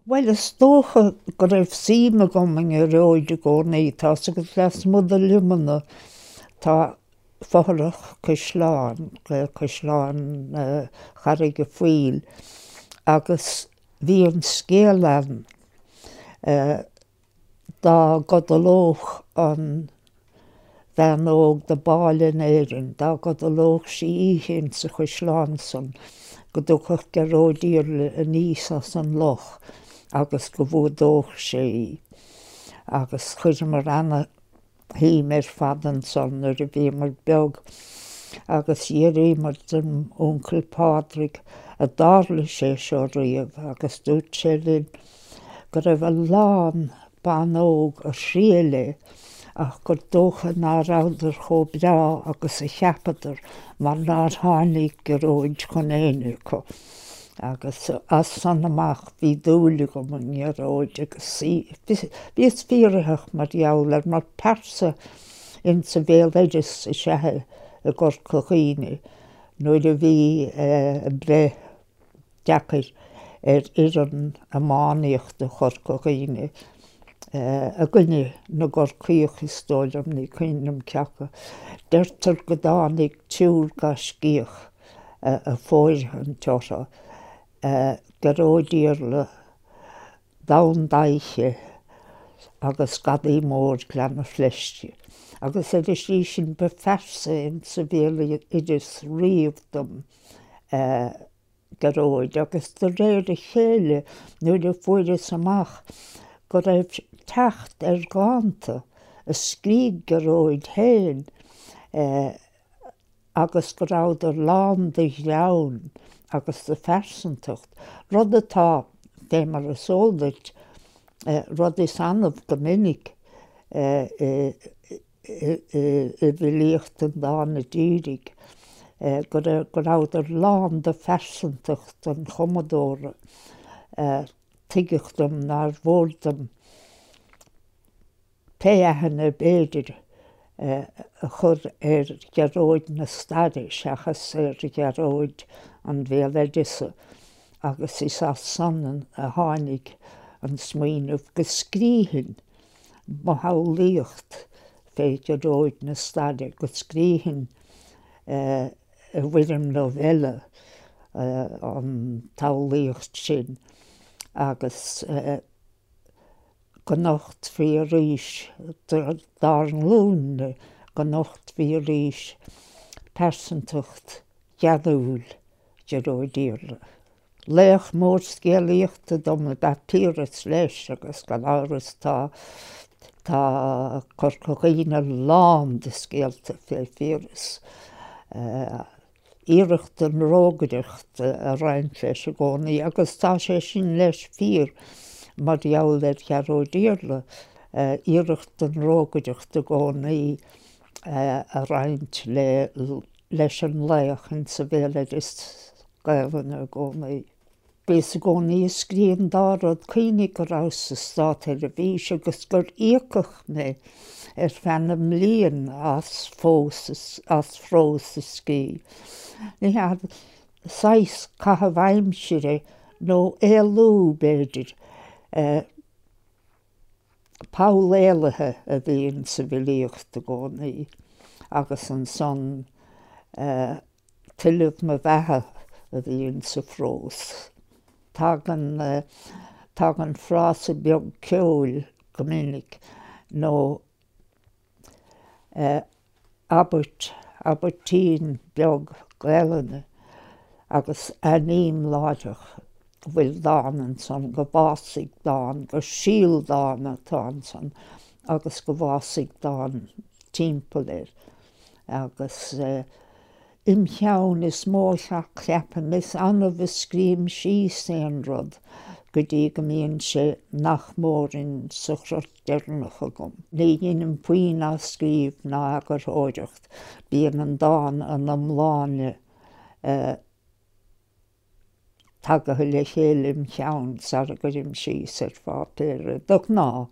Bhuel, is dócha go raibh suim agam i nGearóid i gcónaí. Tá's agat lasmuigh de Luimneach tá fothrach caisleáin, Caisleán Charraig a' Phoill, agus bhí an scéal ann dá gcodlódh an bhean óg dob áille in Éirinn, dá gcodlódh sí oíche insa chaisleán san, go dtiocfadh Gearóid Iarla aníos as an loch agus go bhfuadódh sé í. Agus chuireamar ana shuim ar fad ansan nuair a bhíomar beag agus d'fhiafraíomar den uncail Pádraig an dtarla sé seo riamh agus dúirt sé linn go raibh a lán ban óg a thriail é ach gur dócha ná rabhadar chomh breá agus a cheapadar mar nár tháinig Gearóid chun éinne acu. Agus as san amach bhí dúil agam i nGearóid agus bhíos fíoraitheach mar gheall air mar pearsa insa bhéaloideas is ea é i gCorca Dhuibhne nuair a bhí breith deacair ar fhoireann iománaíochta Chorca Dhuibhne i gcoinne na gCorcaíoch is dóigh liom, ní cuimhin liom cé acu. Deirtear go dtáinig triúr gaiscíoch a fóirithint orthu, Gearóid Iarla, Donn Daiche agus Gadaí Mór Ghleann Fleisce. Agus ar an slí sin ba phearsa insa bhéaloideas riamh dom Gearóid agus de réir a chéile nuair a fuaireas amach go raibh teacht ar dhánta a scrígh Gearóid féin agus go rabhadar lán de ghreann agus de phearsantacht, rud atá, fé mar is eol duit, rud is annamh go minic i bhfilíocht an dána dhírigh, go rabhadar lán de phearsantacht an chumadóra. Tuigeadh dom nár mhór dom pé aithne ab fhéidir a chur ar Ghearóid na staire seachas ar Ghearóid an bhéaloideasa agus is as san a tháinig an smaoineamh go scrífinn mo shamhlaíocht fé Ghearóid na staire, go scrífinn i bhfoirm novella an tsamhlaíocht sin agus. go nochtfaí arís dár nglúin-ne, go nochtfaí arís pearsantacht gheanúil Ghearóid Iarla. Laoch mór scéalaíochta dom ab ea Piaras leis agus gan amhras tá tá Corca Dhuibhne lán de scéalta fé Phiaras. iarracht den rógaireacht a roinnt leis i gcónaí agus tá sé sin leis fíor mar gheall ar Ghearóid Iarla, iarracht den rógaireacht i gcónaí a roinnt le leis an laoch insa bhéaloideas Gaelainne i gcónaí. Bhíos i gcónaí ag scríobh an dá rud, cuimhnigh go rabhas sa Státseirbhís agus gur íocadh mé ar feadh na mblian as fós as prós a scríobh. Ní hea, saghas caitheamh aimsire nó éalú, b'fhéidir. Poll éalaithe a bhí insa bhfilíocht i gcónaí agus ansan tuilleamh mo bheatha a bhí insa phrós. Tagann, tagann frása beag ceoil go minic nó abairt, abairtín beag Gaelainne agus aithním láithreach go bhfuil dán ansan, go bhfásfaidh dán, gur síol dána atá ansan agus go bhfásfaidh dán timpeall air. Agus im cheann is mó a cheapaim, is annamh a scríobhaim síos aon rud go dtí go mbíonn sé nach mór in sa chrot deireanach agam. Ní dheinim puinn athscríobh ná eagarthóireacht, bíonn an dán ina iomláine tagaithe le chéile im cheann sara gcuirim síos ar pháipéar é, de ghnáth.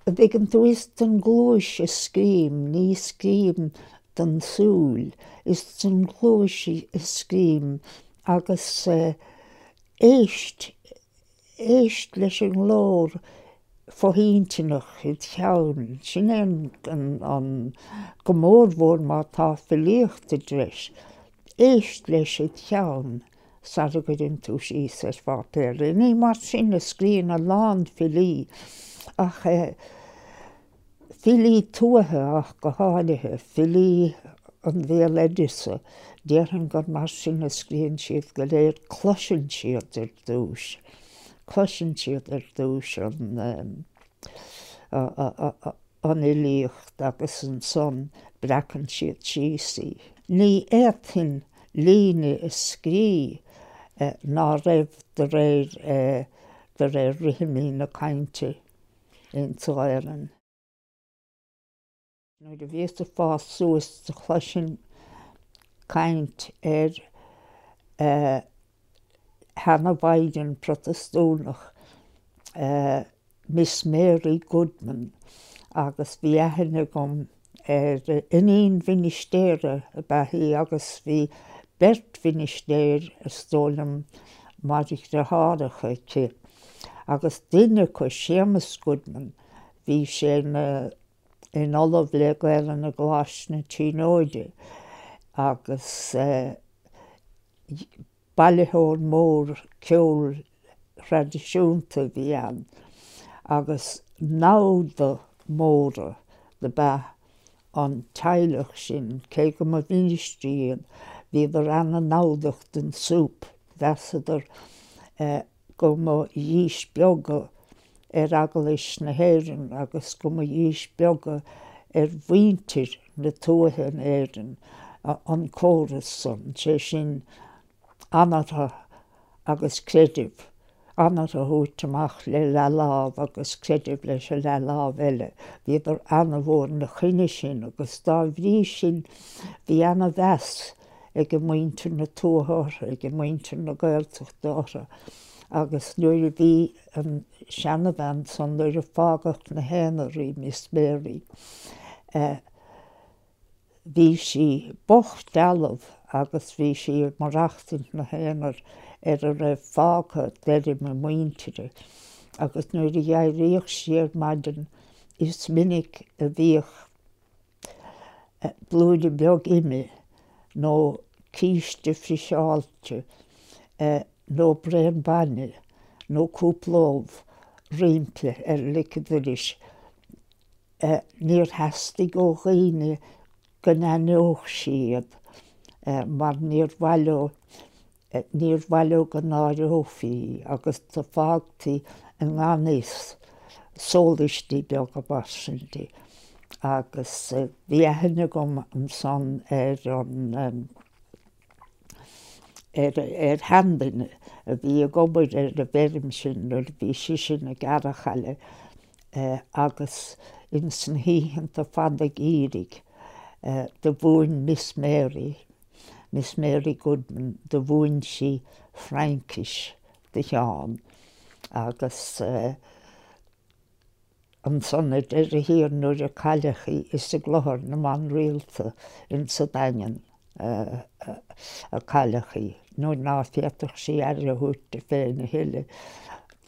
An dtuigeann tú, is don gcluais a scríobhaim, ní scríobhaim don tsúil, is don gcluais a scríobhaim agus éist. Éist leis an nglór fo-intinneach id cheann, sin é an, go mórmhór má tá filíocht i dtreis, éist leis id cheann sara gcuireann tú síos ar pháipéar é. Ní mar sin a scríonn a lán filí ach filí tuaithe ach go háirithe, filí an bhéaloideasa, déarfainn gur mar sin a scríonn siad go léir, cloiseann siad ar dtús, cloiseann siad ar dtús an an fhilíocht agus ansan breacann siad síos í. Ní fhéadfainn líne a scrí ná raibh de réir de réir rithimí na cainte insa Ghaelainn. Nuair a bhíos ag fás suas do chloisinn caint ar sheana-mhaighdean Protastúnach, Miss Mary Goodman, agus bhí aithne agam ar iníon mhinistéara ab ea í agus bhí beirt mhinistéir, is dóigh liom, mar dheartháireacha aici. Agus duine acu, Séamus Goodman, bhí sé ina ina ollamh le Gaelainn i gColáiste na Tríonóide agus bailitheoir mór ceoil thraidisiúnta a bhí ann agus namhda móra dob ea an teaghlach sin, cé go mba mhinistrí iad, bhíodar ana-namhdach don súp, mheasadar go mba dhíspeagadh ar Eaglais na hÉireann agus go mba dhíspeagadh ar mhuintir na tuaithe in Éirinn an córas san, sé sin, anartha agus creideamh, anartha a thabhairt amach le leathlámh agus creideamh leis an leathlámh eile. Bhíodar ana-mhór ina choinne sin agus dá bhrí sin bhí ana-mheas ag muintir na tuaithe orthu, ag muintir na Gaeltachta orthu agus nuair a bhí an seanabhean san, nuair a fágadh 'na haonar í, Miss Mary, bhí sí bocht dealbh agus bhí sí ag maireachtaint 'na haonar ar a raibh fágtha d'fheirm a muintire agus nuair a d'éiríodh sí ar maidin is minic a bhíodh blúire beag ime nó císte friseáilte nó braon bainne nó cúpla ubh roimpi ar lic an dorais. Níor theastaigh ó dhaoine go n-aithneodh sí iad mar níor mhaith leo Níor mhaith leo go náireofaí í agus do fágtaí i ngan fhios sólaistí beaga mar sin di. Agus bhí aithne agam ansan ar an, ar, ar sheanduine a bhí ag obair ar an bhfeirm sin nuair a bhí sise ina gearrchaile agus ins na hoícheanta fada geimhridh do mhúin Miss Mary, Miss Mary Goodman, do mhúin sí Fraincis do Sheán agus ansan ar deireadh thiar nuair a cailleadh í is i gClochar na mBan Rialta insa Daingean a cailleadh í. Nuair ná féadfadh sí aire a thabhairt di féin a thuilleadh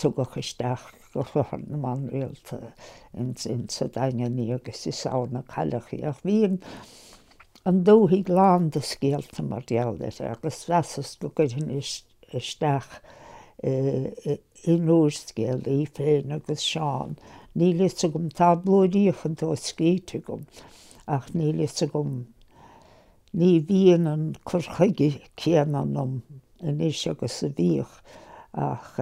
tugadh isteach go Clochar na mBan Rialta insa Daingean í agus is ann a cailleadh í. Ach bhí an an dúthaigh lán de scéalta mar gheall uirthi agus mheasas go gcuirfinn isteach in úrscéal í féin agus Seán. Níl fhios agam, tá blúiríocha dó scríte agam ach níl fhios agam, ní bhíonn an cur chuige céanna ionam anois agus a bhíodh ach.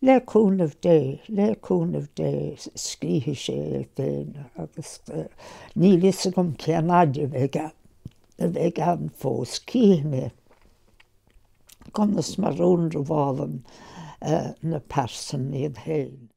Le cúnamh Dé, le cúnamh Dé, scríobhfaidh sé é féin agus níl fhios agam cén fhaid a bheidh a bheidh ann fós. Cífidh mé conas mar a ionramhálann na pearsain iad féin.